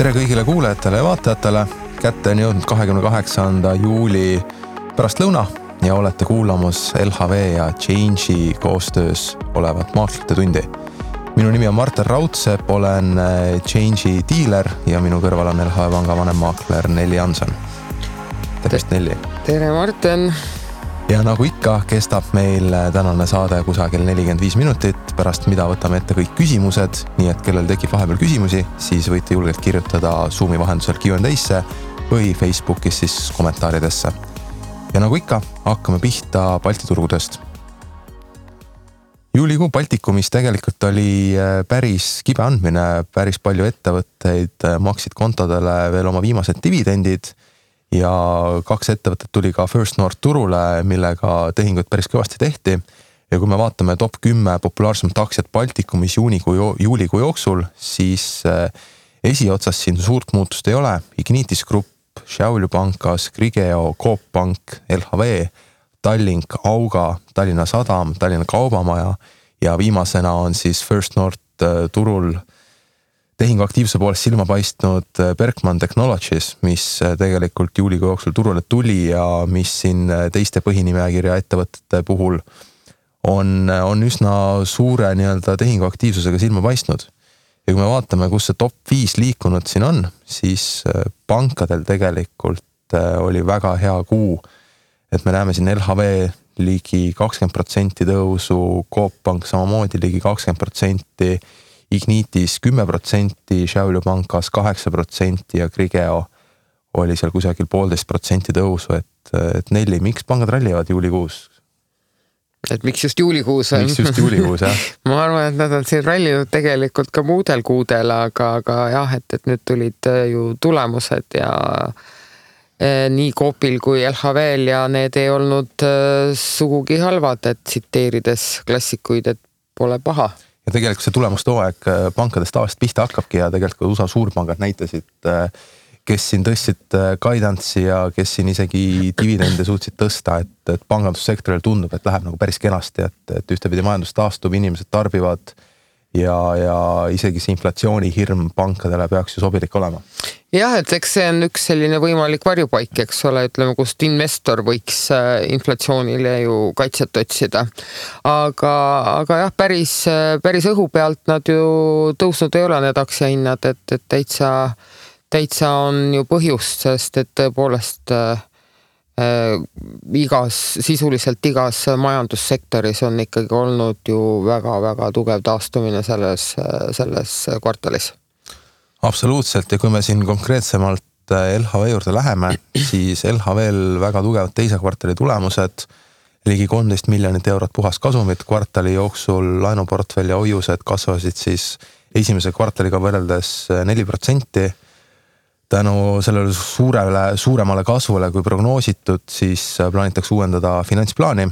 Tere kõigile kuulajatele ja vaatajatele. Kätte on jõudnud 28. juuli pärastlõuna ja olete kuulamas LHV ja Change'i koostöös olevat maaklite tundi. Minu nimi on Martin Raudsepp, olen Change'i diiler ja minu kõrval on LHV panga vanemmaakler Nelli Janson. Tervist, Nelli! Tere, Martin! Ja nagu ikka kestab meil tänane saade kusagil 45 minutit, pärast mida võtame ette kõik küsimused, nii et kellel tekib vahepeal küsimusi, siis võite julgelt kirjutada Zoomi vahendusel Q&A'sse või Facebookis siis kommentaaridesse. Ja nagu ikka, hakkame pihta Balti turgudest. Juulikuu Baltikumis tegelikult oli päris kibe andmine, päris palju ettevõtteid maksid kontodele veel oma viimased dividendid ja 2 ettevõtet tuli ka First North turule, millega tehingut päris kõvasti tehti. Ja kui me vaatame top 10 populaarsemat aktsiat Baltikumis juulikuu jooksul, siis esiotsas siin suurt muutust ei ole. Ignitis Group, Šiaulių pankas, Grigeo, Coop Pank, LHV, Tallink, Auga, Tallinna Sadam, Tallinna Kaubamaja ja viimasena on siis First North turul tehingu aktiivse poolest silma paistnud Berkman Technologies, mis tegelikult juulikuu jooksul turule tuli ja mis siin teiste põhinimekirja ettevõtete puhul on üsna suure tehingu aktiivsusega silma paistnud. Ja kui me vaatame, kus see top 5 liikunud siin on, siis pankadel tegelikult oli väga hea kuu, et me näeme siin LHV ligi 20% tõusu, Coop Pank samamoodi ligi 20%, Ignitis 10%, Šiaulių pankas 8% ja Grigeo oli seal kusagil 1,5% tõusu, et Nelli, miks pangad rallivad juulikuus? Et miks just juulikuus on? Miks just juulikuus, jah? Ma arvan, et nad on siin rallinud tegelikult ka muudel kuudel, aga jah, et nüüd tulid ju tulemused ja nii Coopil kui LHVl ja need ei olnud sugugi halvad, et tsiteerides klassikuid, et pole paha. Ja tegelikult see tulemustooaeg pankadest tavaliselt pihta hakkabki ja tegelikult USA suurpangad näitasid, kes siin tõstsid guidance'i ja kes siin isegi dividende suutsid tõsta, et pangandussektoril tundub, et läheb nagu päris kenasti, et ühtepidi majandus taastub, inimesed tarbivad ja isegi see inflatsioonihirm pankadele peaks ju sobilik olema. Jah, et eks see on üks selline võimalik varjupaik, eks ole, ütleme, kust investor võiks inflatsioonile ju kaitset otsida. Aga jah, päris õhu pealt nad ju tõusnud ei ole need aktsiahinnad, et täitsa on ju põhjust, sest et tõepoolest sisuliselt igas majandussektoris on ikkagi olnud ju väga-väga tugev taastumine selles kvartalis. Absoluutselt ja kui me siin konkreetsemalt LHV juurde läheme, siis LHVl väga tugevad teise kvartali tulemused, ligi 13 miljonit eurot puhas kasumit, kvartali jooksul laenuportfell ja hoiused kasvasid siis esimese kvartaliga võrreldes 4%. Tänu sellele suuremale kasvule kui prognoositud, siis plaanitakse uuendada finantsplaani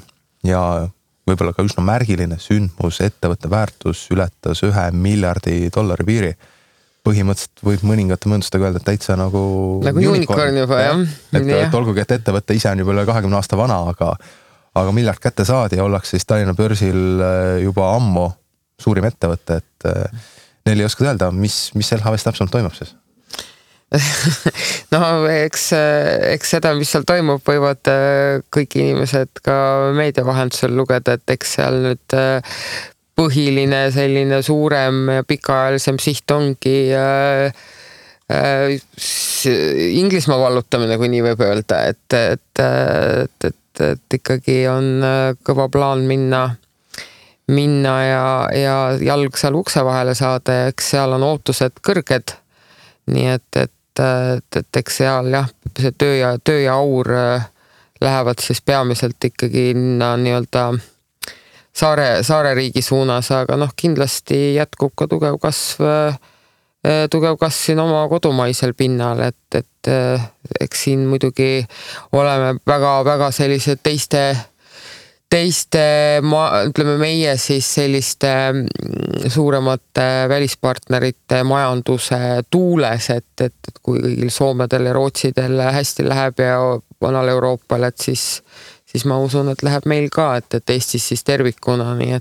ja võib-olla ka üsna märgiline sündmus, ettevõtte väärtus ületas $1 miljardi piiri. Põhimõtteliselt võib mõningate mõõndustega öelda, et täitsa nagu unicorn juba, jah. Et olgugi, et ettevõtte ise on juba üle 20 aasta vana, aga miljard kätte saadi ja ollakse siis Tallinna börsil juba ammu suurim ettevõte, et neil ei oska öelda, mis LHVs täpselt toimub siis? No, eks seda, mis seal toimub, võivad kõik inimesed ka meedia vahendusel lugeda, et eks seal nüüd põhiline selline suurem ja pikaajalisem siht ongi Inglismaa vallutamine, kui nii võib öelda, et ikkagi on kõva plaan minna ja jalg seal ukse vahele saada ja eks seal on ootused kõrged, nii et eks seal jah, see töö ja aur lähevad siis peamiselt ikkagi nii-öelda saare riigi suunas, aga kindlasti jätkub ka tugev kasv siin oma kodumaisel pinnal, et eks siin muidugi oleme väga sellised ütleme meie siis selliste suuremate välispartnerite majanduse tuules, et kui kõigil Soomedel ja Rootsidel hästi läheb ja vanal Euroopal, et siis ma usun, et läheb meil ka, et Eestis siis tervikuna, nii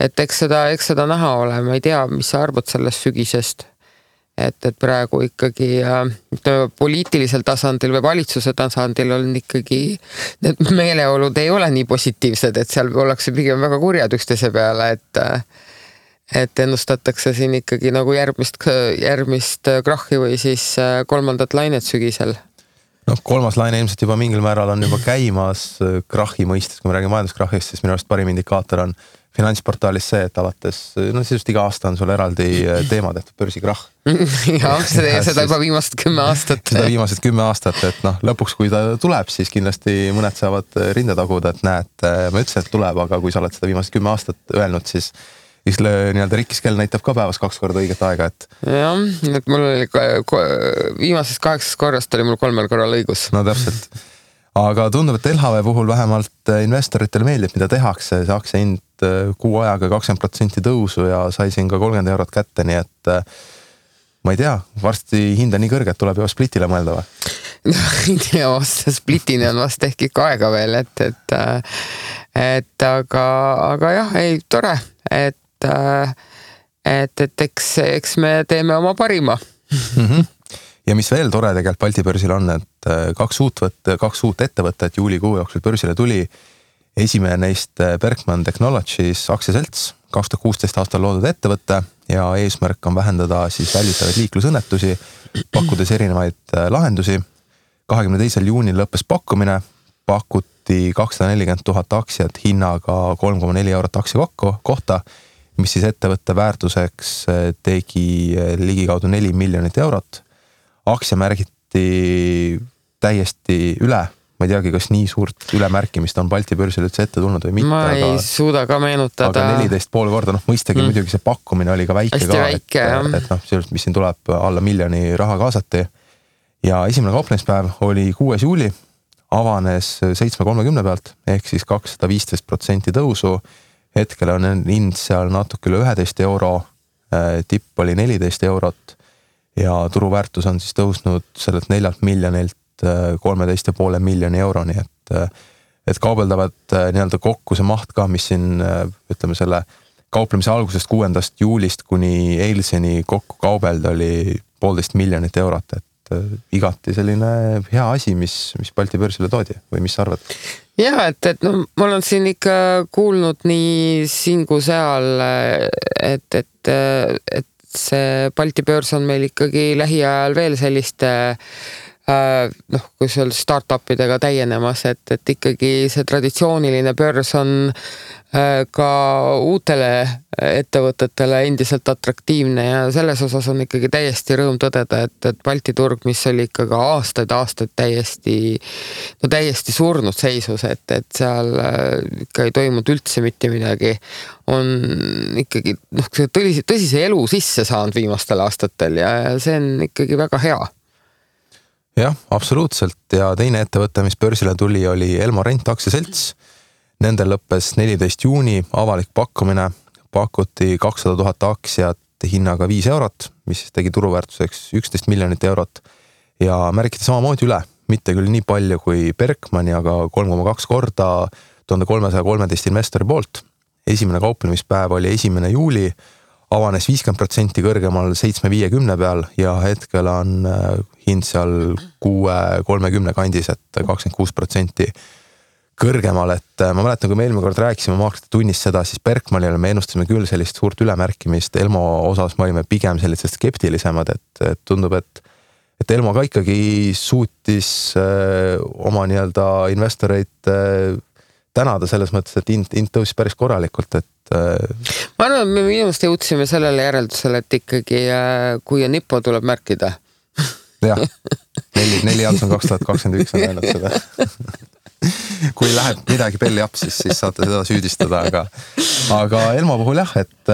et eks seda näha ole, ma ei tea, mis sa arvad sellest sügisest, et praegu ikkagi poliitilisel tasandil või valitsuse tasandil on ikkagi need meeleolud ei ole nii positiivsed, et seal ollakse pigem väga kurjad üksteise peale, et ennustatakse siin ikkagi nagu järgmist krahhi või siis kolmandat lainet sügisel. Kolmas laine ilmselt juba mingil määral on juba käimas krahhi mõistes, kui me räägime majanduskrahhist, siis minu arust parim indikaator on Finantsportaalis see, et alates, sisust iga aasta on sul eraldi teema tehtud börsikrahh. Ja, seda juba viimased 10 aastat. Seda viimased 10 aastat, et lõpuks kui ta tuleb, siis kindlasti mõned saavad rinde taguda, et näed, ma ütlesin, et tuleb, aga kui sa oled seda viimased 10 aastat öelnud, siis nii-öelda rikkiskell näitab ka päevas 2 korda õiget aega, et. Jah, et mul oli viimasest 8 korrast oli mul 3 korral õigus. No täpselt. Aga tundub, et LHV puhul vähemalt investoritele meeldib, mida tehakse, see aktsia hind kuu ajaga 20% tõusu ja sai siin ka 30 eurot kätte, nii et ma ei tea, varsti hinda nii kõrge, et tuleb juba splitile mõelda või? Ei tea, splitini on vast ehk ikka aega veel, aga jah, ei, tore, et eks me teeme oma parima. Ja mis veel tore tegelikult Balti börsil on, et 2 uut ettevõtted juulikuu jooksul börsile tuli. Esimene neist Berkman Technologies aktsiaselts, 2016 aastal loodud ettevõtte ja eesmärk on vähendada siis väljutavaid liiklusõnnetusi, pakkudes erinevaid lahendusi. 22. juunil lõppes pakkumine, pakuti 240 000 aktsiat hinnaga 3,4 eurot aktsia kohta, mis siis ettevõtte väärtuseks tegi ligikaudu 4 miljonit eurot. Aktsia märgiti täiesti üle. Ma ei teagi, kas nii suurt ülemärkimist on Balti börsil üldse ette tulnud või mitte. Ma ei suuda ka meenutada. Aga 14,5 korda, mõistagi muidugi see pakkumine oli ka väike ka, et mis siin tuleb alla miljoni raha kaasati. Ja esimene kauplemispäev oli 6. juuli, avanes 7.30 pealt, ehk siis 215% tõusu. Hetkel on hind seal natuke üle 11 euro, tipp oli 14 eurot. Ja turuväärtus on siis tõusnud sellelt 4 miljonilt 13,5 miljoni euroni, et kaubeldavad nii-öelda kokku see maht ka, mis siin, ütleme selle kauplemise algusest 6. juulist kuni eilseni kokku kaubelda oli 1,5 miljonit eurot, et igati selline hea asi, mis Balti börsile toodi või mis sa arvad? Ja, et ma olen siin ikka kuulnud nii siin kui seal, et see Balti börs on meil ikkagi lähiajal veel selliste kui seal startupidega täienemas, et ikkagi see traditsiooniline börs on ka uutele ettevõtetele endiselt atraktiivne ja selles osas on ikkagi täiesti rõõm tõdeda, et Balti turg, mis oli ikkagi aastaid täiesti surnud seisus, et seal ikka ei toimunud üldse mitte midagi, on ikkagi tõsise elu sisse saanud viimastel aastatel ja see on ikkagi väga hea. Jah, absoluutselt ja teine ettevõte, mis börsile tuli, oli Elmo Rent aktsiaselts. Nendel lõppes 14. juuni avalik pakkumine, pakuti 200 000 aktsiat hinnaga 5 eurot, mis tegi turuväärtuseks 11 miljonit eurot ja märgiti samamoodi üle, mitte küll nii palju kui Berkmani, aga 3,2 korda 1313 investori poolt. Esimene kauplemispäev oli 1. juuli, avanes 50% kõrgemal 7.50 peal ja hetkel on hind seal 6.30 kandis, et 26% kõrgemal, et ma mäletan, kui me eelmine kord rääkisime maakrite tunnist seda, siis Berkmanile me ennustasime küll sellist suurt ülemärkimist, Elmo osas me olime pigem sellised skeptilisemad, et tundub, et Elmo ka ikkagi suutis oma nii-öelda investoreid tänada selles mõttes, et hind tõusis päris korralikult, et ma arvan, me minust jõudsime sellele järeldusele, et ikkagi kui on Nippo, tuleb märkida. Jah, 4 Janson 2021 on öelnud seda. Kui läheb midagi belli apsis, siis saate seda süüdistada, aga Elmo puhul jah, et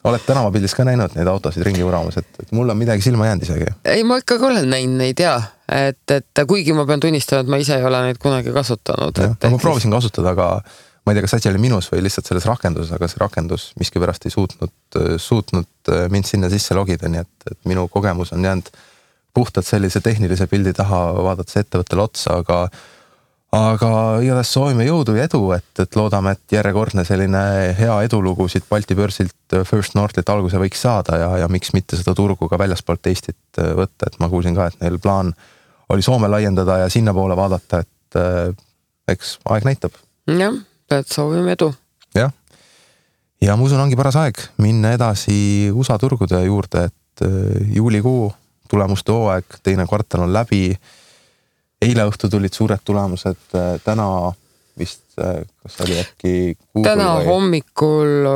oled tänavapildis ka näinud neid autosid ringi uramas, et mul on midagi silma jäänud isegi. Ei, ma ikkagi olen näinud neid, et kuigi ma pean tunnistama, et ma ise ei ole neid kunagi kasutanud. Ma proovisin kasutada, aga ma ei tea, kas asi oli minus või lihtsalt selles rakenduses, aga see rakendus miskipärast ei suutnud mind sinna sisse logida, nii et minu kogemus on jäänud puhtalt sellise tehnilise pildi taha vaadates ettevõttele otsa, aga igatahes soovime jõudu ja edu, et loodame, et järjekordne selline hea edulugu siit Balti börsilt First Northilt alguse võiks saada ja miks mitte seda turgu ka väljaspoolt Eestit võtta, et ma kuulsin ka, et neil plaan oli Soome laiendada ja sinna poole vaadata, et eks aeg näitab. Jah, et soovime edu. Jah, ja ma usun, ongi paras aeg minna edasi USA turgude juurde, et juulikuu tulemuste hooaeg, teine kvartal on läbi. Eile õhtu tulid suured tulemused, täna vist, kas oli äkki Google täna hommikul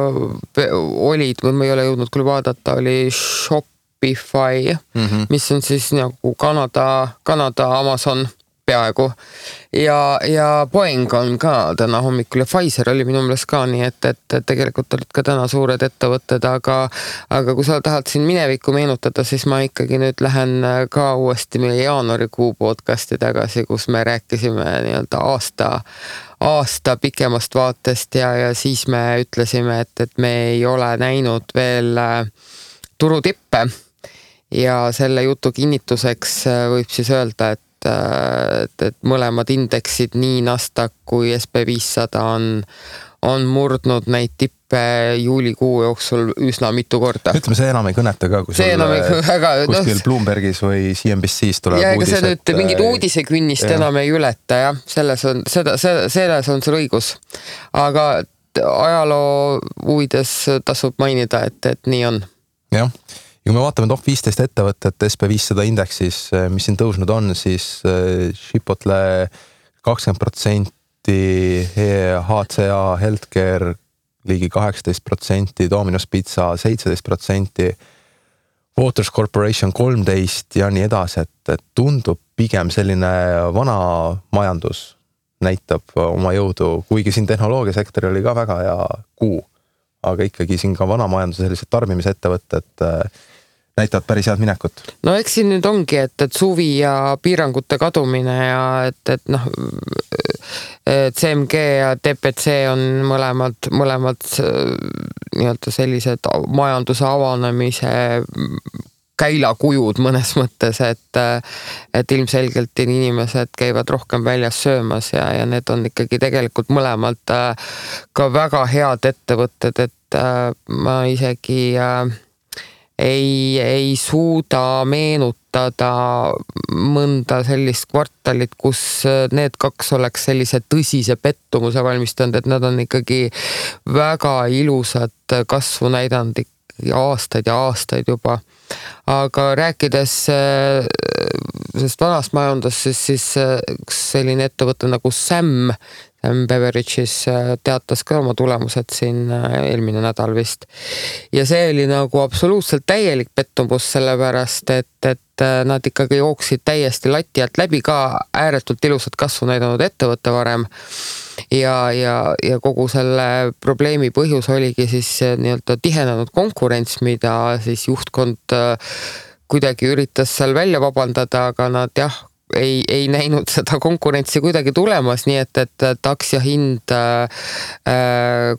olid, või ma ei ole jõudnud küll vaadata, oli Shopify, mis on siis nagu Kanada Amazon peaaegu ja Boeing on ka täna hommikul ja Pfizer oli minu meelest ka, nii et tegelikult olid ka täna suured ettevõtted, aga kui sa tahad siin minevikku meenutada, siis ma ikkagi nüüd lähen ka uuesti meie jaanuarikuu podcasti tagasi, kus me rääkisime nii-öelda aasta pikemast vaatest ja siis me ütlesime, et me ei ole näinud veel turutippe ja selle jutu kinnituseks võib siis öelda, et mõlemad indeksid, nii Nasdaq kui SP500 on murdnud neid tippe juulikuu jooksul üsna mitu korda. Ütleme, see enam ei kõneta ka, kui kuskil Bloombergis või CNBC's tuleb ja ega see nüüd mingid uudisekünnist enam ei ületa, jah. Selles on sul õigus. Aga ajaloo huvides tasub mainida, et nii on. Jah. Ja kui me vaatame top 15 ettevõtet SP500 indeksis, mis siin tõusnud on, siis Chipotle 20%, HCA Healthcare ligi 18%, Domino's Pizza 17%, Waters Corporation 13% ja nii edasi, et tundub pigem selline vana majandus näitab oma jõudu, kuigi siin tehnoloogiasektori oli ka väga hea kuu, aga ikkagi siin ka vana majanduse sellised tarbimisettevõtted näitavad päris head minekut. No eks siin nüüd ongi, et suvi ja piirangute kadumine ja et CMG ja DPC on mõlemad nii-öelda sellised majanduse avanemise käilakujud mõnes mõttes, et ilmselgelt inimesed käivad rohkem väljas söömas ja need on ikkagi tegelikult mõlemad ka väga head ettevõtted, et ma isegi ei suuda meenutada mõnda sellist kvartalit, kus need kaks oleks sellise tõsise pettumuse valmistanud, et nad on ikkagi väga ilusat kasvu näidanud aastaid ja aastaid juba. Aga rääkides sellest vanast majandust, siis selline ettevõte nagu Sam Beverages teatas ka oma tulemused siin eelmine nädal vist. Ja see oli nagu absoluutselt täielik pettumus, sellepärast, et nad ikkagi jooksid täiesti lati alt läbi, ka ääretult ilusat kasvu näidanud ettevõtte varem. Ja kogu selle probleemi põhjus oligi siis nii-öelda tihenenud konkurents, mida siis juhtkond kuidagi üritas seal välja vabandada, aga nad ei näinud seda konkurentsi kuidagi tulemas, nii et aktsiahind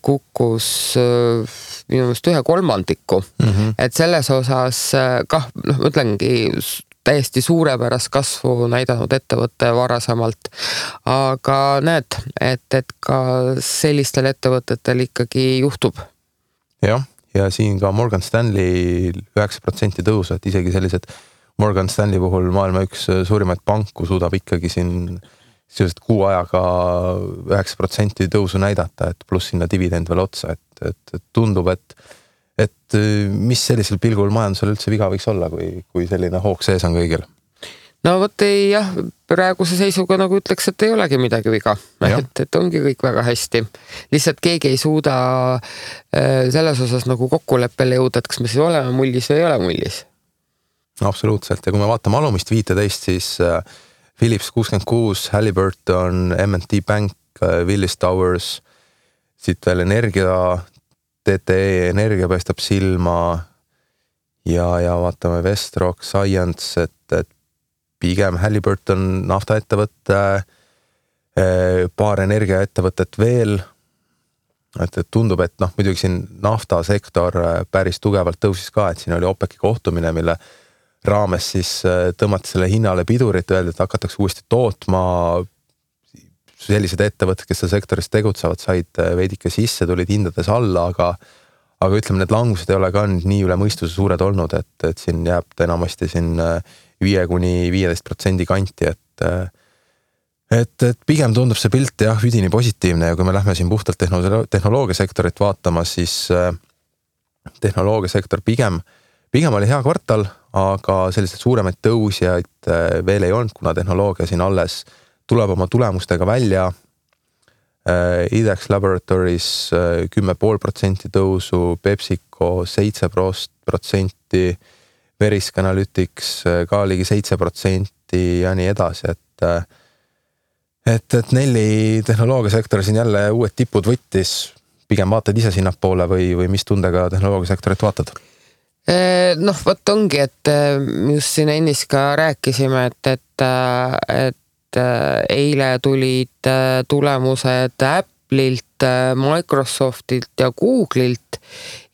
kukkus minu meelest 1/3. Et selles osas kah, mõtlengi täiesti suurepärast kasvu näidanud ettevõtte varasemalt, aga näed, et ka sellistel ettevõtetel ikkagi juhtub. Jah, ja siin ka Morgan Stanley 9% tõusu, et isegi sellised Morgan Stanley puhul maailma üks suurimaid panku suudab ikkagi siin sellised kuu ajaga 9% tõusu näidata, et pluss sinna dividend veel otsa, et tundub, et mis sellisel pilgul majandusel üldse viga võiks olla, kui selline hoog sees on kõigil? No vot jah, praeguse seisuga nagu ütleks, et ei olegi midagi viga, et ongi kõik väga hästi. Lihtsalt keegi ei suuda selles osas nagu kokkuleppele jõuda, et kas me siis oleme mullis või ei ole mullis. Absoluutselt, ja kui me vaatame alumist 15, siis Philips 66, Halliburton, M&T Bank, Willis Towers, siit veel energia, TTE energia paistab silma ja vaatame Vestrock, Science, et pigem Halliburton naftaettevõtte, paar energiaettevõtet veel, et tundub, et muidugi siin naftasektor päris tugevalt tõusis ka, et siin oli OPEC-i kohtumine, mille raames siis tõmmati selle hinnale pidurit, öeldi, et hakatakse uuesti tootma sellised ettevõtted, kes seal sektoris tegutsevad, said veidike sisse, tulid hindades alla, aga ütleme, need langused ei ole ka nii üle mõistuse suured olnud, et siin jääb ta enamasti siin 5–15% kanti, et pigem tundub see pilt jah, üdini positiivne ja kui me lähme siin puhtalt tehnoloogiasektorit vaatama, siis tehnoloogiasektor pigem oli hea kvartal, aga selliseid suuremaid tõusjaid veel ei olnud, kuna tehnoloogia siin alles tuleb oma tulemustega välja. IDEX Laboratories 10,5% tõusu, PepsiCo 7%, Verisk Analytics ka ligi 7% ja nii edasi, et Nelli tehnoloogiasektor siin jälle uued tipud võttis, pigem vaatad ise sinnapoole või mis tundega tehnoloogiasektorit vaatad? Noh, võt ongi, et just siin ennist ka rääkisime, et eile tulid tulemused Apple'ilt, Microsoftilt ja Google'ilt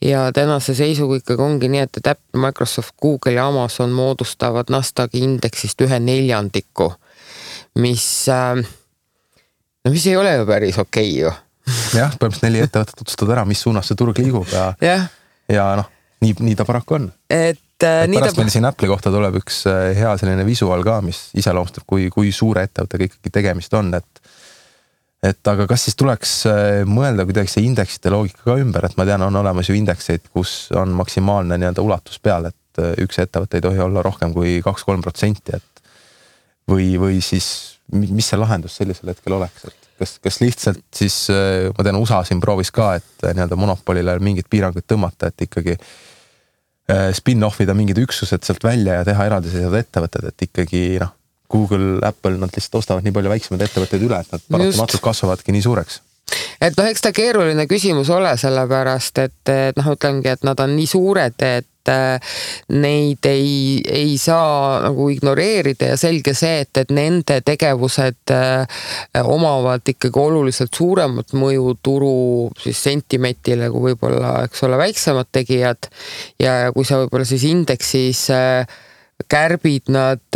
ja tänase seisuga ikkagi ongi nii, et Apple, Microsoft, Google ja Amazon moodustavad Nasdaqi indeksist 1/4, mis ei ole ju päris okei ju. Jah, põhimõtteliselt 4 ettevõtet otsustavad ära, mis suunas see turg liigub ja noh, nii ta paraku on. Pärast meil siin Apple'i kohta tuleb üks hea selline visuaal ka, mis iseloomustab, kui suure ettevõttega ikkagi tegemist on, et aga kas siis tuleks mõelda kuidagi see indeksite loogika ka ümber, et ma tean, on olemas ju indekseid, kus on maksimaalne nii-öelda ulatus peal, et üks ettevõte ei tohi olla rohkem kui 2–3%, et või siis mis see lahendus sellisel hetkel oleks, et kas lihtsalt siis, ma tean, USA siin proovis ka, et nii-öelda monopolile mingid piirangud tõmmata, et ikkagi spin-offida mingid üksused sealt välja ja teha eraldiseisvad ettevõtted, et ikkagi Google, Apple, nad lihtsalt ostavad nii palju väiksemaid ettevõtteid üle, et nad paratamatult kasvavadki nii suureks. Et eks ta keeruline küsimus ole sellepärast, et ütlengi, et nad on nii suured, et neid ei saa nagu ignoreerida ja selge see, et nende tegevused omavad ikkagi oluliselt suuremat mõju turu siis sentimentile kui võib-olla, eks ole, väiksemad tegijad ja kui sa võib-olla siis indeksis kärbid nad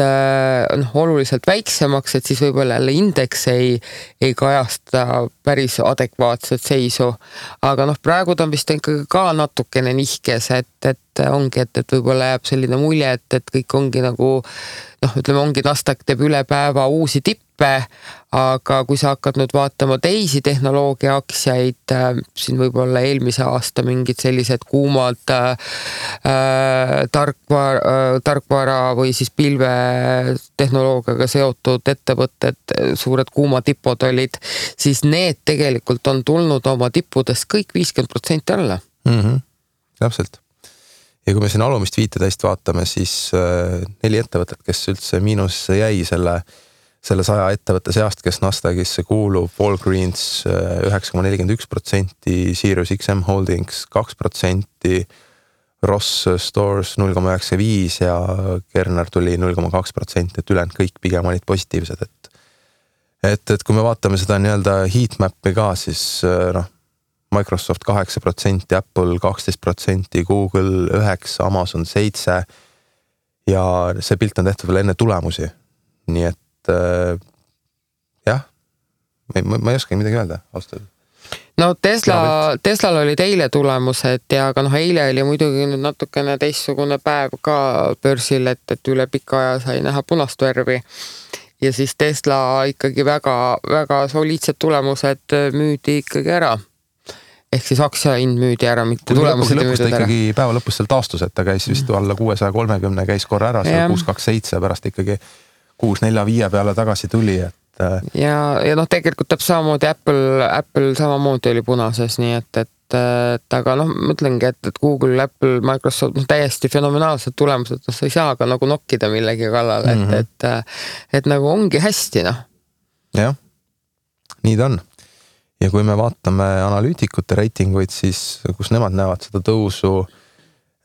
oluliselt väiksemaks, et siis võib-olla jälle indeks ei kajasta päris adekvaatset seisu. Aga praegu ta on vist ikkagi ka natukene nihkes, et ongi, et võib-olla jääb selline mulje, et kõik ongi nagu, ütleme, ongi Nasdaq teeb üle päeva uusi tippe, aga kui sa hakkad nüüd vaatama teisi tehnoloogia aktsiaid, siin võib-olla eelmise aasta mingid sellised kuumad tarkvara või siis pilvetehnoloogiaga seotud ettevõtted, suured kuumatipud olid, siis need tegelikult on tulnud oma tippudest kõik 50% alla. Täpselt. Ja kui me siin alumist 15 vaatame, siis 4 ettevõtet, kes üldse miinusesse jäi selle 100 ettevõtte seast, kes Nasdaqisse kuulub, Walgreens 9,41%, Sirius XM Holdings 2%, Ross Stores 0,95% ja Kerner tuli 0,2%, et ülejäänud kõik pigem olid positiivsed, et kui me vaatame seda nii-öelda heatmap'i ka, siis Microsoft 8%, Apple 12%, Google 9%, Amazon 7% ja see pilt on tehtud veel enne tulemusi. Nii et jah, ma ei oska midagi öelda, austada. No Teslal olid eile tulemused ja aga eile oli muidugi nüüd natukene teistsugune päev ka börsil, et üle pika aja sai näha punast värvi. Ja siis Tesla ikkagi väga, väga soliidsed tulemused müüdi ikkagi ära. Ehk siis aktsiahind müüdi ära, mitte tulemused müüdi ära. Ikkagi päeva lõpus seal taastus, et ta käis vist alla 630, käis korra ära, seal 627 pärast ikkagi 645 peale tagasi tuli. Ja tegelikult täpselt samamoodi Apple samamoodi oli punases, nii et aga mõtlengi, et Google, Apple, Microsoft täiesti fenomenaalsed tulemused, sa ei saa ka nagu nokkida millegi kallale, et nagu ongi hästi, Jah, nii ta on. Ja kui me vaatame analüütikute reitinguid, siis kus nemad näevad seda tõusu,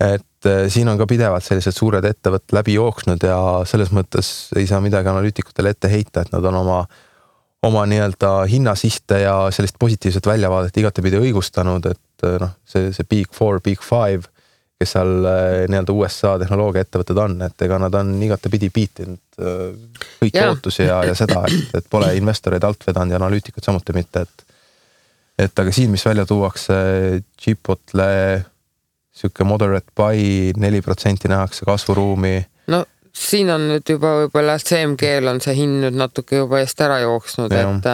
et siin on ka pidevalt sellised suured ettevõtted läbi jooksnud ja selles mõttes ei saa midagi analüütikutele ette heita, et nad on oma nii-öelda hinnasihte ja sellist positiivset väljavaadet igatepidi õigustanud, et see Big 4, Big 5, kes seal nii-öelda USA tehnoloogia ettevõtted on, et ega nad on igatepidi piitinud kõiki ootusi ja seda, et pole investoreid alt vedanud ja analüütikud samuti mitte, et aga siin, mis välja tuuakse Chipotle siuke moderate buy, 4% nähakse kasvuruumi. No siin on nüüd juba võib-olla CMG-l on see hind nüüd natuke juba eest ära jooksnud, et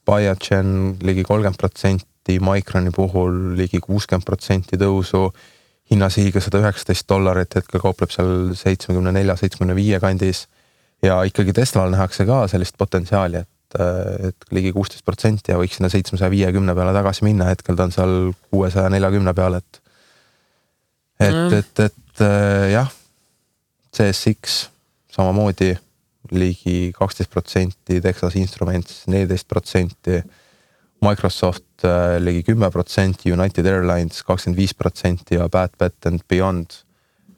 Biogen ligi 30%, Microni puhul ligi 60% tõusu, hinnasihiga $119, hetkel kaupleb seal 74-75 kandis ja ikkagi Teslal nähakse ka sellist potentsiaali, et ligi 16% ja võiks sinna 750 peale tagasi minna, hetkel ta on seal 640 peale, et jah, CSX samamoodi ligi 12%, Texas Instruments 14%, Microsoft ligi 10%, United Airlines 25% ja Bad Bet and Beyond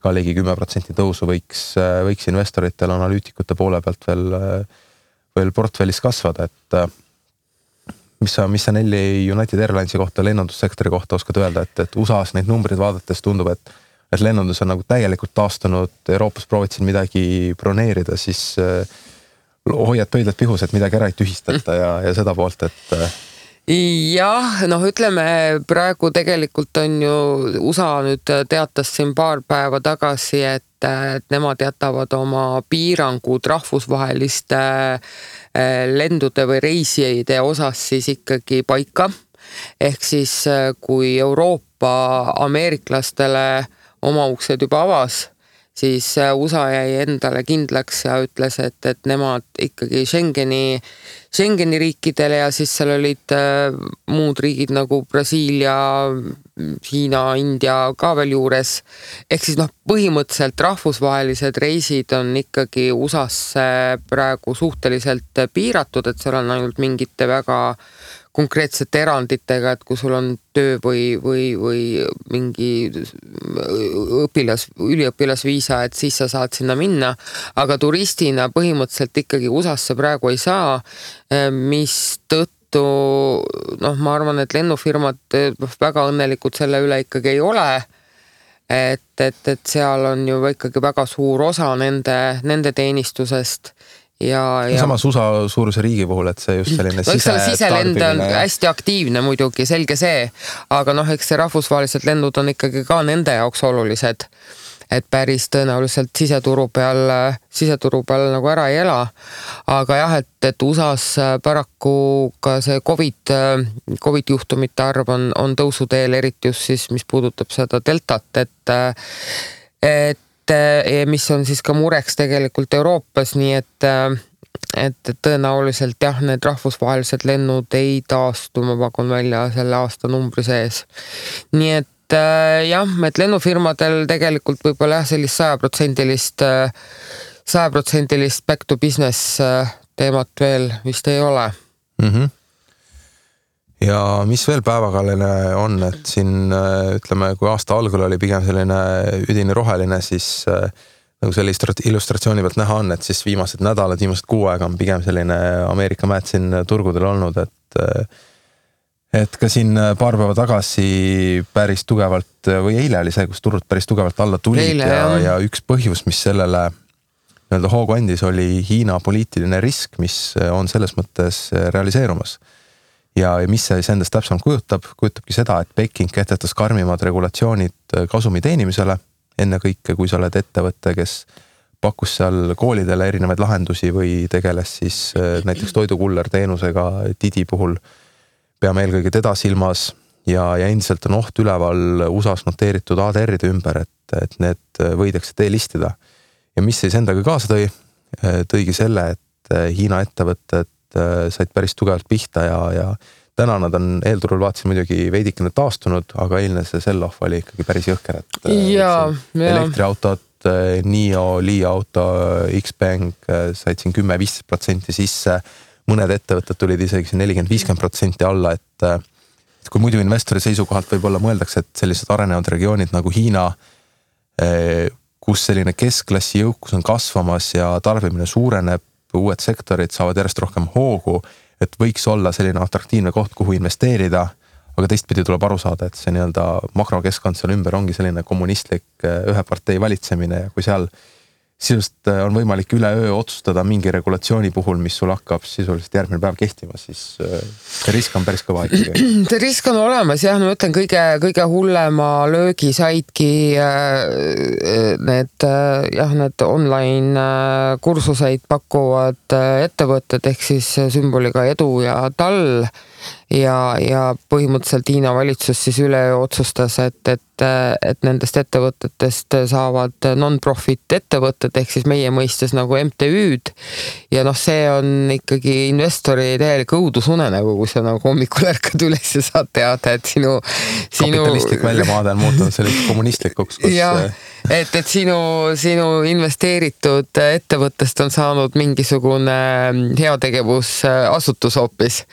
ka ligi 10% tõusu võiks investoritel analüütikute poole pealt veel portfellis kasvada, et mis sa Nelli United Airlinesi kohta, lennundussektori kohta oskad öelda, et USA-s neid numbreid vaadates tundub, et lennundus on nagu täielikult taastunud, Euroopas proovid siin midagi broneerida, siis hoiad pöidlad pihus, et midagi ära ei tühistata ja seda poolt, et jah, noh, ütleme praegu tegelikult on ju USA nüüd teatas siin paar päeva tagasi, et nemad jätavad oma piirangud rahvusvaheliste lendude või reisijate osas siis ikkagi paika. Ehk siis kui Euroopa ameeriklastele oma uksed juba avas, siis USA jäi endale kindlaks ja ütles, et nemad ikkagi Schengeni riikidele ja siis seal olid muud riigid nagu Brasiilia, Hiina, India ka veel juures. Ehk siis põhimõtteliselt rahvusvahelised reisid on ikkagi USA-sse praegu suhteliselt piiratud, et seal on ainult mingite väga konkreetsete eranditega, et kui sul on töö või mingi üliõpilasviisa, et siis sa saad sinna minna, aga turistina põhimõtteliselt ikkagi USA-sse praegu ei saa, mis tõttu, ma arvan, et lennufirmad väga õnnelikud selle üle ikkagi ei ole, et seal on ju ikkagi väga suur osa nende teenistusest. Ja samas USA suuruse riigi puhul, et see just selline siselend on hästi aktiivne muidugi, selge see, aga eks see rahvusvahelised lennud on ikkagi ka nende jaoks olulised, et päris tõenäoliselt siseturu peal nagu ära ei ela, aga jah, et USA-s paraku ka see COVID juhtumite arv on tõusuteel, eriti just siis, mis puudutab seda deltat, et mis on siis ka mureks tegelikult Euroopas, nii et tõenäoliselt jah, need rahvusvahelised lennud ei taastu, ma pakun välja selle aasta numbri sees. Nii et jah, et lennufirmadel tegelikult võib-olla jah, sellist 100% back to business teemat veel vist ei ole. Ja mis veel päevakajaline on, et siin ütleme, kui aasta algul oli pigem selline üdini roheline, siis nagu selle illustratsiooni pealt näha on, et siis viimased nädalad, viimased kuu aega on pigem selline Ameerika mäed siin turgudel olnud, et ka siin paar päeva tagasi päris tugevalt või eile oli see, kus turud päris tugevalt alla tulid ja üks põhjus, mis sellele nii-öelda hoogu andis, oli Hiina poliitiline risk, mis on selles mõttes realiseerumas. Ja mis see endast täpsemalt kujutabki seda, et Peking kehtetas karmimad regulatsioonid kasumi teenimisele, enne kõike, kui sa oled ettevõtte, kes pakkus seal koolidele erinevaid lahendusi või tegeles siis näiteks toidukuller teenusega Didi puhul, peame eelkõige teda silmas ja endiselt on oht üleval USA-s noteeritud ADR-ide ümber, et need võidakse delistida. Ja mis siis endaga kaasa tõigi selle, et Hiina ettevõtted said päris tugevalt pihta ja täna nad on eelturul vaatasin muidugi veidikene taastunud, aga eilne see sell-off oli ikkagi päris jõhker, et elektriautod, NIO, Li auto, Xpeng said siin 10-15% sisse, mõned ettevõtted tulid isegi 40-50% alla, et kui muidu investori seisukohalt võib-olla mõeldakse, et sellised arenevad regioonid nagu Hiina, kus selline keskklassi jõukus on kasvamas ja tarbimine suureneb, uued sektorid saavad järjest rohkem hoogu, et võiks olla selline atraktiivne koht, kuhu investeerida, aga teistpidi tuleb aru saada, et see nii-öelda makrokeskkond seal ümber ongi selline kommunistlik ühe partei valitsemine ja kui seal sisuliselt on võimalik üleöö otsustada mingi regulatsiooni puhul, mis sul hakkab sisuliselt järgmine päev kehtima, siis see risk on päris kõva ikkagi. See risk on olemas jah, ma ütlen kõige hullema löögi saidki need online kursuseid pakkuvad ettevõtted ehk siis sümboliga edu ja tall ja põhimõtteliselt Hiina valitsus siis üleöö otsustas, et nendest ettevõtetest saavad non-profit ettevõtted ehk siis meie mõistes nagu MTÜ-d ja see on ikkagi investori täielik õudusunenägu, kui sa nagu hommikul ärkad üles ja saad teada, et sinu kapitalistlik väljamaade on muutunud selliseks kommunistlikuks, kus et sinu investeeritud ettevõttest on saanud mingisugune heategevusasutus hoopis,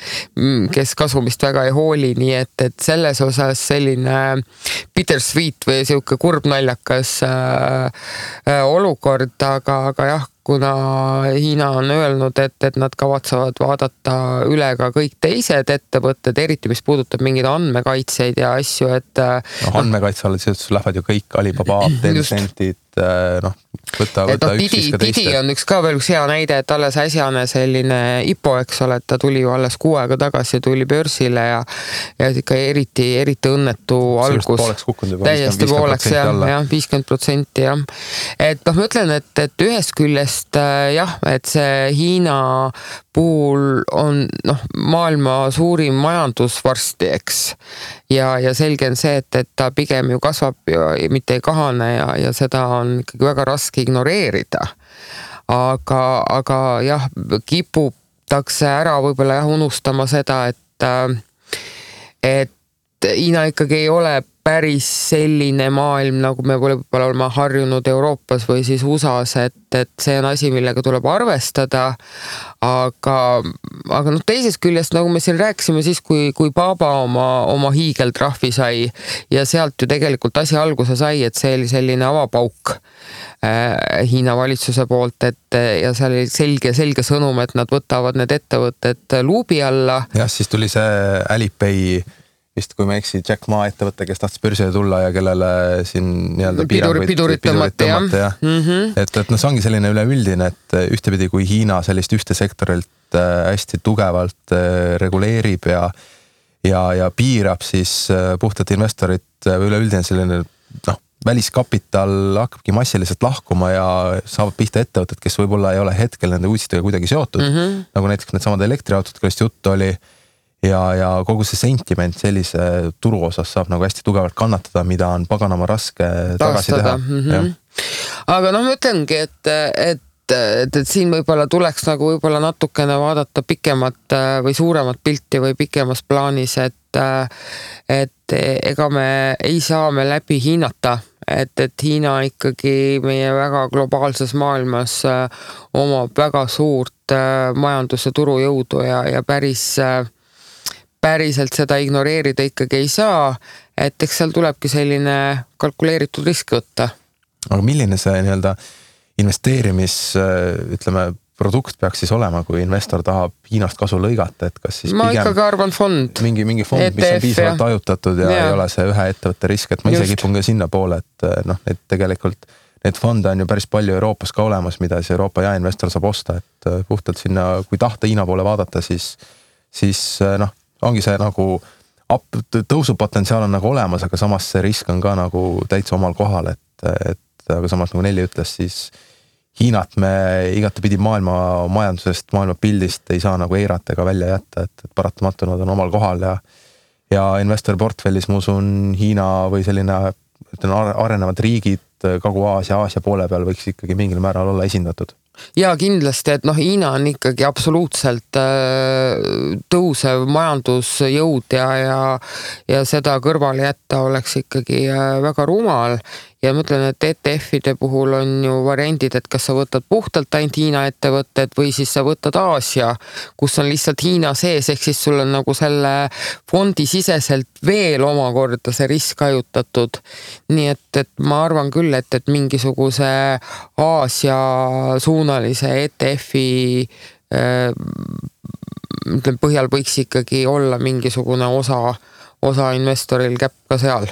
kes kasumist väga ei hooli, nii et selles osas selline bittersweet või siuke kurb naljakas olukord, aga jah, kuna Hiina on öelnud, et nad kavatsevad vaadata üle ka kõik teised ettevõtted, eriti mis puudutab mingeid andmekaitseid ja asju, et andmekaitse alla siis lähevad ju kõik Alibaba, Tencentid, võta üks siis ka teiste. Didi on veel üks hea näide, et alles äsjane selline IPO, eks ole, et ta tuli ju alles 6 aega tagasi, tuli börsile ja ikka eriti õnnetu algus. Täiesti pooleks, jah, 50% jah. Et ma ütlen, et ühest küljest jah, et see Hiina puhul on maailma suurim majandus varsti, eks. Ja selge on see, et ta pigem ju kasvab ja mitte ei kahane ja seda on ikkagi väga raske ignoreerida. Aga jah, kiputakse ära võib-olla unustama seda, et Hiina ikkagi ei ole päris selline maailm, nagu me võib-olla oleme harjunud Euroopas või siis USAs, et see on asi, millega tuleb arvestada, aga teisest küljest, nagu me siin rääkisime siis, kui Baba oma hiigeltrahvi sai ja sealt ju tegelikult asi alguse sai, et see oli selline avapauk Hiina valitsuse poolt, ja seal oli selge sõnum, et nad võtavad need ettevõtted luubi alla. Jah, siis tuli see Alipay vist, kui me eksi, Jack Ma ettevõte, kes tahtis börsile tulla ja kellele siin nii-öelda pidurit tõmmata, jah. Et see ongi selline üleüldine, et ühtepidi kui Hiina sellist ühte sektorilt hästi tugevalt reguleerib ja piirab, siis puhtalt investorid või üleüldine selline väliskapital hakkabki massiliselt lahkuma ja saavad pihta ettevõtted, kes võib-olla ei ole hetkel nende uudistega kuidagi seotud, nagu näiteks need samad elektriautod, kellest juttu oli. Ja kogu see sentiment sellise turu osas saab nagu hästi tugevalt kannatada, mida on paganama raske tagasi teha. Aga ma ütlengi, et siin võib-olla tuleks nagu võib-olla natukene vaadata pikemat või suuremat pilti või pikemas plaanis, et ega me ei saa me läbi hinnata, et Hiina ikkagi meie väga globaalses maailmas omab väga suurt majandus- ja turujõudu ja päriselt seda ignoreerida ikkagi ei saa, et eks seal tulebki selline kalkuleeritud risk võtta. Aga milline see nii-öelda produkt peaks siis olema, kui investor tahab Hiinast kasu lõigata, et kas siis ma ikkagi arvan fond. Mingi fond, ETF, mis on piisavalt ajutatud ja ei ole see ühe ettevõtte risk, et ma ise kipun ka sinna poole, et tegelikult need fonde on ju päris palju Euroopas ka olemas, mida siis Euroopa jaeinvestor saab osta, et puhtalt sinna, kui tahta Hiina poole vaadata, siis ongi see nagu tõusupotentsiaal on nagu olemas, aga samas see risk on ka nagu täitsa omal kohal, et aga samas nagu Nelli ütles, siis Hiinat me igatepidi maailma majandusest, maailma pildist ei saa nagu eirata ega välja jätta, et paratamatu nad on omal kohal ja investori portfellis ma usun Hiina või selline arenevad riigid Kagu-Aasia, Aasia poole peal võiks ikkagi mingil määral olla esindatud. Ja kindlasti, et Hiina on ikkagi absoluutselt tõusev majandusjõud ja seda kõrvale jätta oleks ikkagi väga rumal. Ja ma ütlen, et ETF-ide puhul on ju variandid, et kas sa võtad puhtalt ainult Hiina ettevõtted või siis sa võtad Aasia, kus on lihtsalt Hiina sees, ehk siis sul on nagu selle fondi siseselt veel omakorda see risk hajutatud. Nii et ma arvan küll, et mingisuguse Aasia suunalise ETF-i põhjal võiks ikkagi olla mingisugune osa investoril käpp ka seal.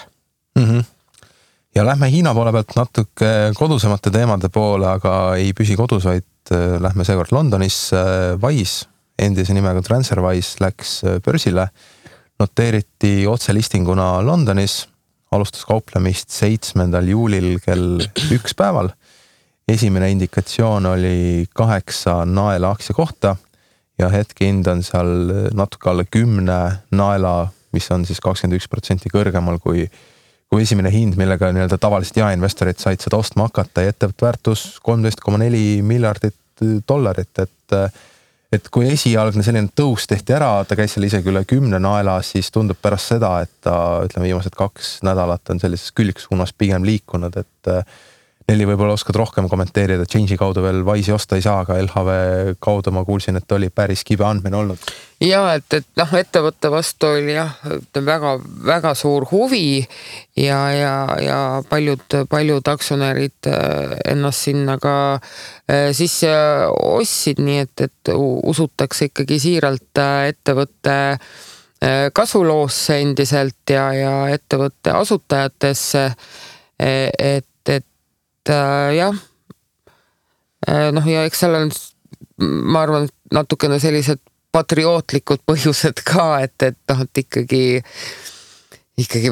Ja lähme Hiina poole pealt natuke kodusemate teemade poole, aga ei püsi kodus, vaid lähme seekord Londonis. Wise, endise nimega TransferWise, läks börsile, noteeriti otselistinguna Londonis, alustas kauplemist 7. juulil kell 1 päeval. Esimene indikatsioon oli 8 naela aktsia kohta ja hetkehind on seal natuke alla 10 naela, mis on siis 21% kõrgemal kui esimene hind, millega nii-öelda tavaliselt jaeinvestorid said seda ostma hakata ja ettevõtte väärtus $13.4 miljardit, et kui esialgne selline tõus tehti ära, ta käis seal isegi üle 10 naela, siis tundub pärast seda, et ta, ütleme, viimased 2 nädalat on sellises külgsuunas pigem liikunud, et Nelli võib-olla oskad rohkem kommenteerida, Change'i kaudu veel Wise'i osta ei saa, aga LHV kaudu ma kuulsin, et oli päris kibe andmine olnud. Ja, et ettevõtte vastu oli väga, väga suur huvi ja paljud aktsionärid ennast sinna ka sisse ostsid, nii et usutakse ikkagi siiralt ettevõtte kasuloosse endiselt ja ettevõtte asutajatesse, et jah, ja eks seal on, ma arvan, natukene sellised patriootlikud põhjused ka, et ikkagi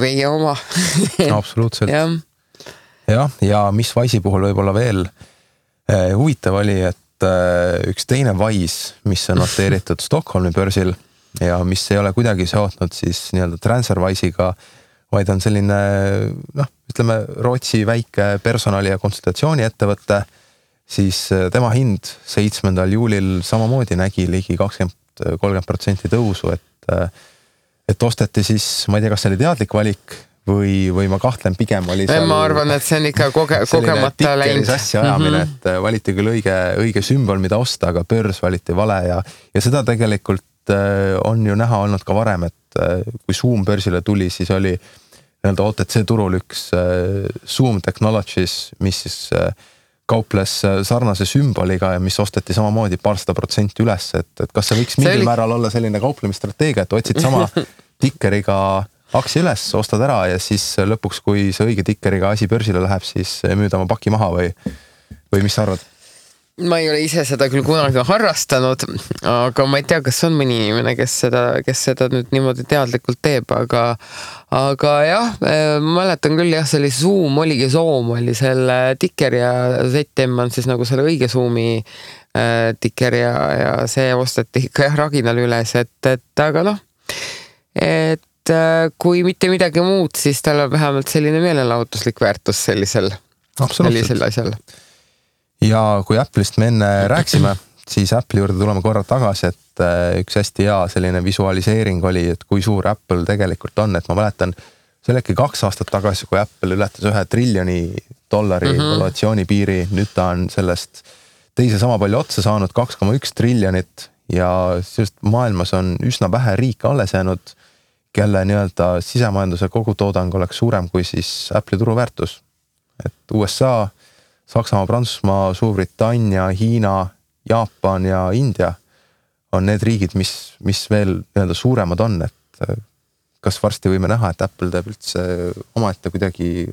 meie oma. Absoluutselt. Ja mis Wise'i puhul võib-olla veel huvitav oli, et üks teine Wise, mis on noteeritud Stockholmi börsil ja mis ei ole kuidagi seotnud siis nii-öelda TransferWise'iga, vaid on selline, ütleme, Rootsi väike personali- ja konsultatsiooni ettevõtte, siis tema hind 7. juulil samamoodi nägi ligi 20-30% tõusu, et osteti siis, ma ei tea, kas see oli teadlik valik või ma kahtlen, pigem oli seal... Ma arvan, et see on ikka kogemata läinud. Asja ajamine, et valiti küll õige sümbol, mida osta, aga börs valiti vale ja seda tegelikult on ju näha olnud ka varem, et kui Zoom börsile tuli, siis oli nii-öelda OTC turul üks Zoom Technologies, mis siis kauples sarnase sümboliga ja mis osteti samamoodi 200% üles, et kas see võiks mingil määral olla selline kauplemistrateegia, et otsid sama tikkeriga aktsia üles, ostad ära ja siis lõpuks, kui see õige tikkeriga asi börsile läheb, siis müüd oma paki maha või mis sa arvad? Ma ei ole ise seda küll kunagi harrastanud, aga ma ei tea, kas on mõni inimene, kes seda nüüd niimoodi teadlikult teeb, aga jah, ma mäletan küll jah, see oli Zoom, oligi Zoom, oli selle tikker ja ZM on siis nagu selle õige Zoomi tikker ja see osteti ikka jah raginal üles, et aga et kui mitte midagi muud, siis tal on vähemalt selline meelelahutuslik väärtus sellisel asjal. Ja kui Apple'ist me enne rääksime, siis Apple'i juurde tuleme korra tagasi, et üks hästi hea selline visualiseering oli, et kui suur Apple tegelikult on, et ma mäletan, see oli äkki 2 aastat tagasi, kui Apple ületas $1 triljoni valuatsiooni piiri, nüüd ta on sellest teise sama palju otsa saanud, 2,1 triljonit ja sellest maailmas on üsna vähe riike alles jäänud, kelle nii-öelda sisemajanduse kogutoodang oleks suurem kui siis Apple'i turuväärtus. Et USA, Saksamaa, Prantsusmaa, Suurbritannia, Hiina, Jaapan ja India on need riigid, mis veel nii-öelda suuremad on, et kas varsti võime näha, et Apple teeb üldse omaette kuidagi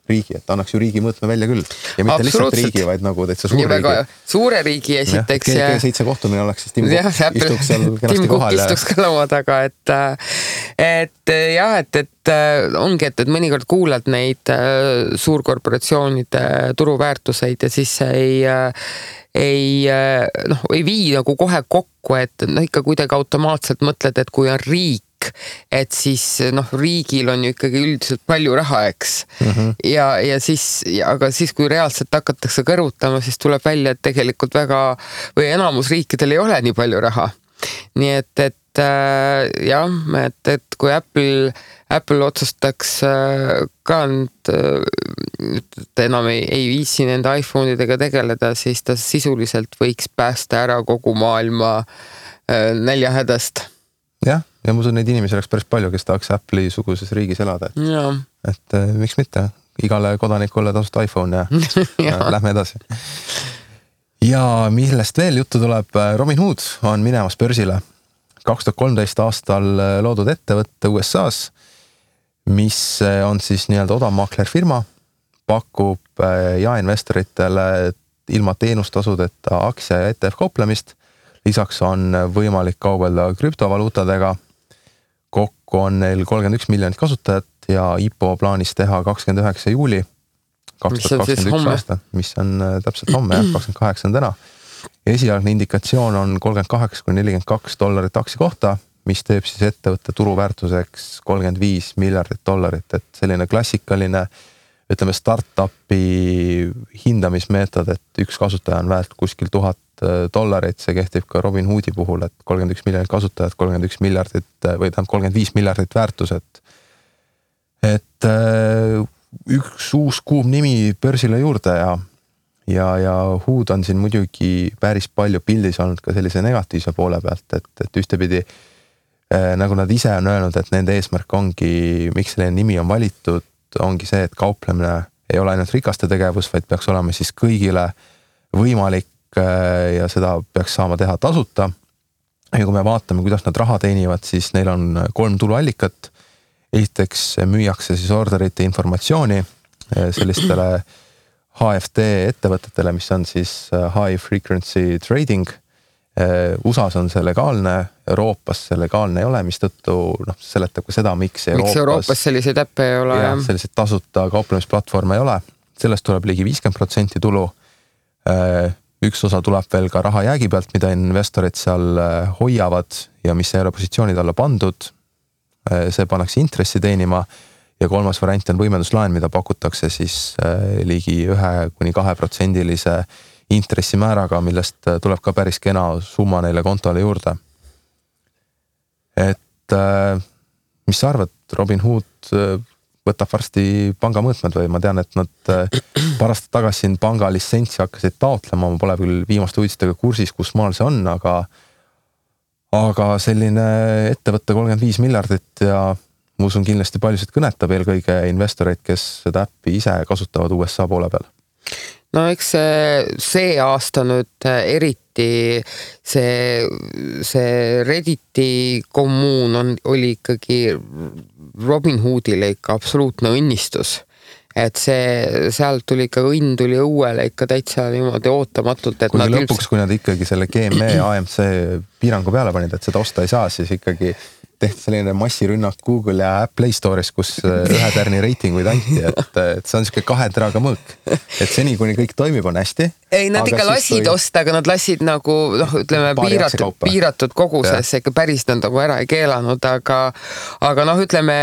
riigi, et annaks ju riigi mõõtme välja küll. Ja mitte lihtsalt riigi, vaid nagu täitsa suur riigi. Suure riigi esiteks. G7 kohtumine oleks, siis Tim istuks seal kenasti kohal. Istuks ka laua taga, et ongi, et mõnikord kuulad neid suurkorporatsioonide turuväärtuseid ja siis ei vii nagu kohe kokku, et ikka kuidagi automaatselt mõtled, et kui on riik, et siis riigil on ju ikkagi üldiselt palju raha, eks. Ja siis, kui reaalselt hakatakse kõrvutama, siis tuleb välja, et tegelikult või enamus riikidel ei ole nii palju raha. Nii et kui Apple otsustaks ka enam ei viisi nende iPhone'idega tegeleda, siis ta sisuliselt võiks päästa ära kogu maailma näljahädast. Ja ma usun, neid inimesi oleks päris palju, kes tahaks Apple'i suguses riigis elada. Et miks mitte? Igale kodanikule tasuta iPhone ja lähme edasi. Ja millest veel juttu tuleb, Robinhood on minemas börsile. 2013 aastal loodud ettevõtte USA's mis on siis nii-öelda odav maaklerfirma, pakub jaeinvestoritele ilma teenustasudeta aktsia ja ETF kauplemist. Lisaks on võimalik kaubelda krüptovaluutadega. Kokku on neil 31 miljonit kasutajat ja IPO plaanis teha 29. juuli 2021 aasta, mis on täpselt homme, 28 on täna. Esialgne indikatsioon on $38–42 aktsia kohta, mis teeb siis ettevõtte turuväärtuseks $35 miljardit, et selline klassikaline, ütleme startupi hindamismeetod, et üks kasutaja on väärt kuskil $1000, see kehtib ka Robinhoodi puhul, et 31 miljonit kasutajat, 31 miljardit või tähendab 35 miljardit väärtuset. Et üks uus kuum nimi börsile juurde ja Hood on siin muidugi päris palju pildis olnud ka sellise negatiivse poole pealt, et ühtepidi nagu nad ise on öelnud, et nende eesmärk ongi, miks selline nimi on valitud, ongi see, et kauplemine ei ole ainult rikaste tegevus, vaid peaks olema siis kõigile võimalik ja seda peaks saama teha tasuta. Ja kui me vaatame, kuidas nad raha teenivad, siis neil on 3 tuluallikat. Esiteks müüakse siis orderite informatsiooni sellistele HFT ettevõtetele, mis on siis high frequency trading. USAs on see legaalne, Euroopas see legaalne ei ole, mis tõttu seletab ka seda, miks Euroopas selliseid äppe ei ole. Ja selliseid tasuta kauplemisplatvorme ei ole. Sellest tuleb ligi 50% tulu. Üks osa tuleb veel ka raha jäägi pealt, mida investorid seal hoiavad ja mis ei ole positsioonid alla pandud. See pannakse intressi teenima ja kolmas variant on võimenduslaen, mida pakutakse siis ligi 1–2% intressimääraga, millest tuleb ka päris kena summa neile kontole juurde. Et mis sa arvad, Robinhood võtab varsti panga mõõtmed või ma tean, et nad pärast tagasi siin panga litsentsi hakkasid taotlema, ma pole küll viimaste uudistega kursis, kus maal see on, aga selline ettevõtte 35 miljardit ja ma usun kindlasti paljusid kõnetab eelkõige investoreid, kes seda äppi ise kasutavad USA poole peal. No eks see aasta nüüd eriti see Redditi kommuun oli ikkagi Robinhoodile ikka absoluutne õnnistus. Et sealt tuli ikka õnn tuli õuele ikka täitsa niimoodi ootamatult. Et kui lõpuks, kui nad ikkagi selle GME AMC piirangu peale panid, et seda osta ei saa, siis ikkagi tehti selline massirünnak Google ja Play Store'is, kus ühe tärni reitinguid anti, et see on siuke 2 teraga mõõk. Et seni, kuni kõik toimib, on hästi. Ei, nad ikka lasid osta, aga nad lasid nagu, ütleme, piiratud koguses, ikka päris nad nagu ära ei keelanud, aga ütleme,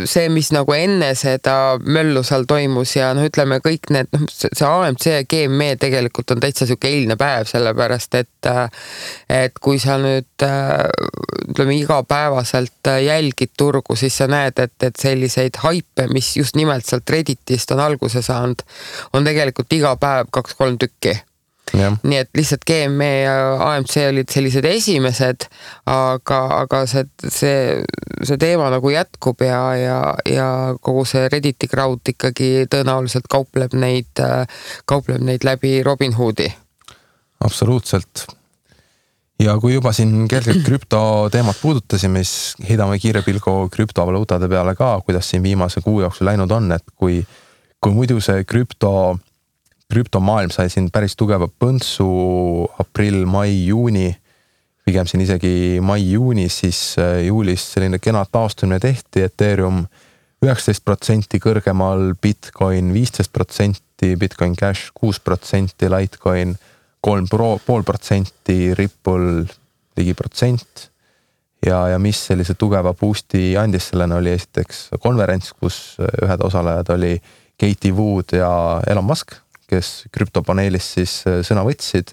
see, mis nagu enne seda möllu seal toimus ja ütleme, kõik need, see AMC ja GME tegelikult on täitsa siuke eilne päev, sellepärast, et kui sa nüüd, ütleme, iga päevaselt jälgid turgu, siis sa näed, et selliseid haipe, mis just nimelt sealt Redditist on alguse saanud, on tegelikult iga päev 2-3 tükki. Ja. Nii et lihtsalt GME ja AMC olid sellised esimesed, aga see teema nagu jätkub ja kogu see Redditi crowd ikkagi tõenäoliselt kaupleb neid läbi Robinhoodi. Absoluutselt. Ja kui juba siin kergelt krüptoteemat puudutasime, siis heidame kiire pilgu krüptovaluutade peale ka, kuidas siin viimase kuu jooksul läinud on, et kui muidu see krüptomaailm sai siin päris tugeva põntsu aprill, mai, juuni, pigem siin isegi mai-juuni, siis juulis selline kena taastumine tehti, Ethereum 19% kõrgemal, Bitcoin 15%, Bitcoin Cash 6%, Litecoin 3,5%, Ripple ligi %. Ja mis sellise tugeva boosti andis sellena oli esiteks konverents, kus ühed osalejad oli Katie Wood ja Elon Musk, kes krüptopaneelis siis sõna võtsid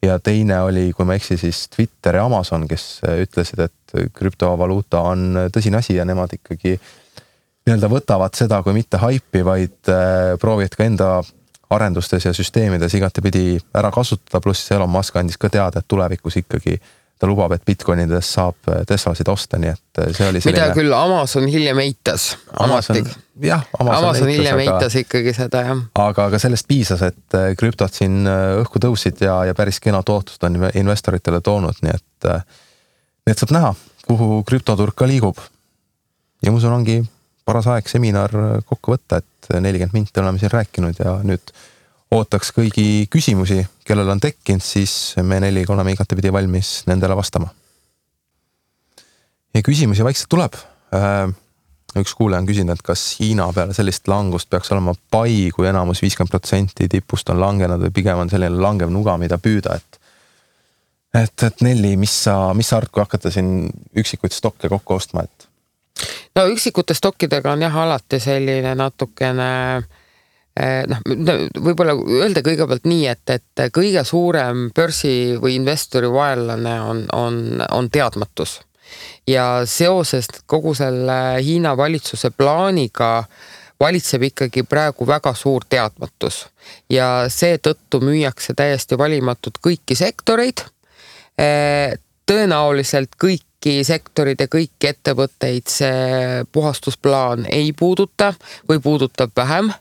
ja teine oli, kui ma eksi, siis Twitter ja Amazon, kes ütlesid, et krüptovaluuta on tõsine asi ja nemad ikkagi nii-öelda võtavad seda kui mitte haipi, vaid proovivad ka enda arendustes ja süsteemides igatepidi ära kasutada, pluss Elon Musk andis ka teada, et tulevikus ikkagi ta lubab, et Bitcoinides saab Teslasid osta, nii et see oli selline... Mida küll Amazon hiljem eitas. Amazon hiljem eitas ikkagi seda, jah. Aga sellest piisas, et krüptot siin õhku tõusid ja päris kena tootlust on investoritele toonud, nii et saab näha, kuhu krüptoturg ka liigub. Ja musun ongi paras aeg seminar kokku võtta, et 40 minti oleme siin rääkinud ja nüüd ootaks kõigi küsimusi, kellel on tekkinud, siis me 4 oleme igatepidi valmis nendele vastama. Ja küsimusi vaikselt tuleb. Üks kuulaja on küsinud, et kas Hiina peale sellist langust peaks olema pai, kui enamus 50% tipust on langenud või pigem on selline langev nuga, mida püüda, et Nelli, mis sa arvad, kui hakata siin üksikuid stokke kokku ostma, et? No üksikute stokkidega on jah alati selline natukene, võib-olla öelda kõigepealt nii, et kõige suurem börsi või investori vaenlane on teadmatus. Ja seoses kogu selle Hiina valitsuse plaaniga valitseb ikkagi praegu väga suur teadmatus. Ja seetõttu müüakse täiesti valimatud kõiki sektoreid, tõenäoliselt kõiki sektorid ja kõiki ettevõtteid see puhastusplaan ei puuduta või puudutab vähem.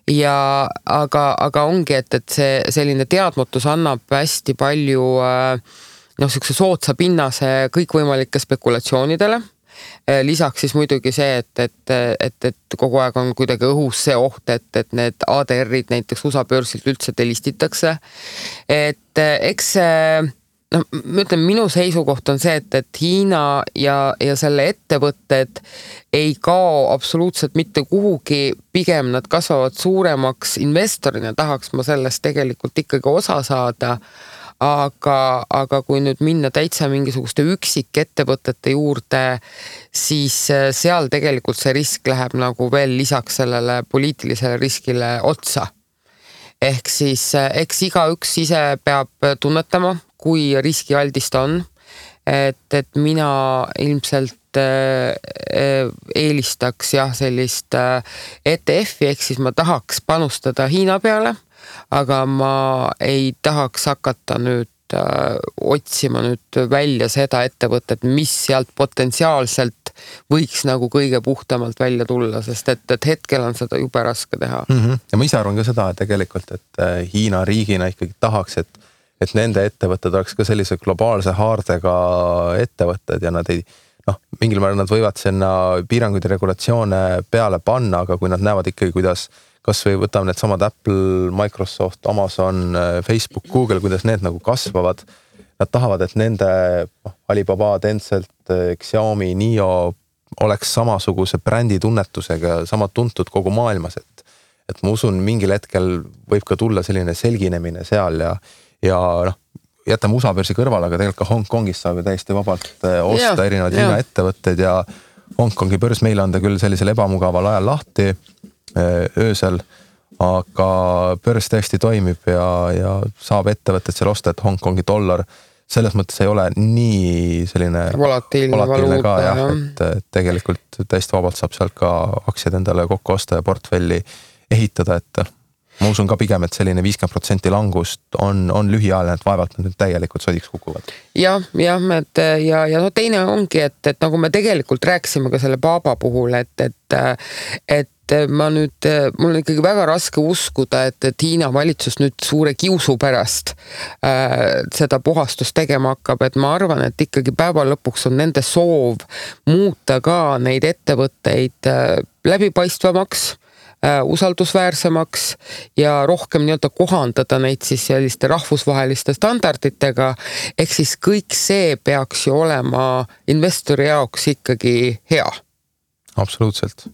Aga ongi, et see selline teadmatus annab hästi palju sihukese sootsa pinnase kõikvõimalike spekulatsioonidele. Lisaks siis muidugi see, et kogu aeg on kuidagi õhus see oht, et need ADR-id näiteks USA börsilt üldse delistitakse. Et eks ma ütlen, minu seisukoht on see, et Hiina ja selle ettevõtted ei kao absoluutselt mitte kuhugi, pigem nad kasvavad suuremaks investorina, tahaks ma sellest tegelikult ikkagi osa saada, aga kui nüüd minna täitsa mingisuguste üksik ettevõtete juurde, siis seal tegelikult see risk läheb nagu veel lisaks sellele poliitilisele riskile otsa. Ehk siis eks igaüks ise peab tunnetama, kui riskialdist on, et mina ilmselt eelistaks sellist ETF-i, ehk siis ma tahaks panustada Hiina peale, aga ma ei tahaks hakata nüüd otsima nüüd välja seda ettevõtet, mis sealt potentsiaalselt võiks nagu kõige puhtamalt välja tulla, sest et hetkel on seda jube raske teha. Ja ma ise arvan ka seda, et tegelikult, et Hiina riigina ikkagi tahaks, et nende ettevõtted oleks ka sellise globaalse haardega ettevõtted ja nad ei, mingil määral nad võivad sinna piiranguid ja regulatsioone peale panna, aga kui nad näevad ikkagi, kuidas kas või võtame need samad Apple, Microsoft, Amazon, Facebook, Google, kuidas need nagu kasvavad, nad tahavad, et nende Alibaba, Tencent, Xiaomi, NIO oleks samasuguse brändi tunnetusega, sama tuntud kogu maailmas, et ma usun, mingil hetkel võib ka tulla selline selginemine seal ja jätame USA börsi kõrval, aga tegelikult ka Hongkongis saab ju täiesti vabalt osta erinevad Hiina ettevõtted ja Hongkongi börs meile anda küll sellisel ebamugaval ajal lahti öösel, aga börs tõesti toimib ja saab ettevõtted seal osta, et Hongkongi dollar selles mõttes ei ole nii selline volatiilne ka et tegelikult täiesti vabalt saab sealt ka aktsiad endale kokku osta ja portfelli ehitada, et ma usun ka pigem, et selline 50% langust on lühiajaline, et vaevalt nad nüüd täielikult sodiks kukuvad. Ja teine ongi, et nagu me tegelikult rääkisime ka selle Baba puhul, et ma nüüd, mul on ikkagi väga raske uskuda, et Hiina valitsus nüüd suure kiusu pärast seda puhastust tegema hakkab, et ma arvan, et ikkagi päeva lõpuks on nende soov muuta ka neid ettevõtteid läbipaistvamaks, usaldusväärsemaks ja rohkem nii-öelda kohandada neid siis selliste rahvusvaheliste standarditega, ehk siis kõik see peaks ju olema investori jaoks ikkagi hea. Absoluutselt.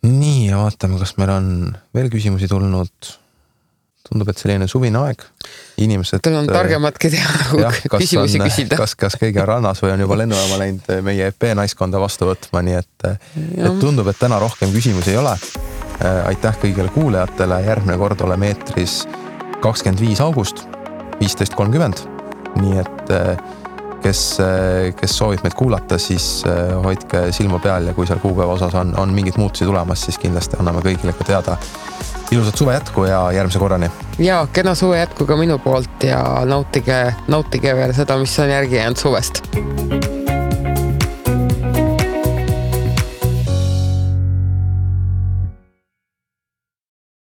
Nii, ja vaatame, kas meil on veel küsimusi tulnud. Tundub, et selline suvine aeg. Inimesed... Teil on targematki teha küsimusi küsida. Kas keegi on rannas või on juba lennujaama läinud meie EP naiskonda vastu võtma, nii et tundub, et täna rohkem küsimusi ei ole. Aitäh kõigile kuulajatele, järgmine kord oleme eetris 25. august 15.30, nii et kes soovib meid kuulata, siis hoidke silma peal ja kui seal kuupäeva osas on mingid muutusi tulemas, siis kindlasti anname kõigile ka teada. Ilusat suve jätku ja järgmise korrani. Ja kena suve jätku ka minu poolt ja nautige veel seda, mis on järgi jäänud suvest.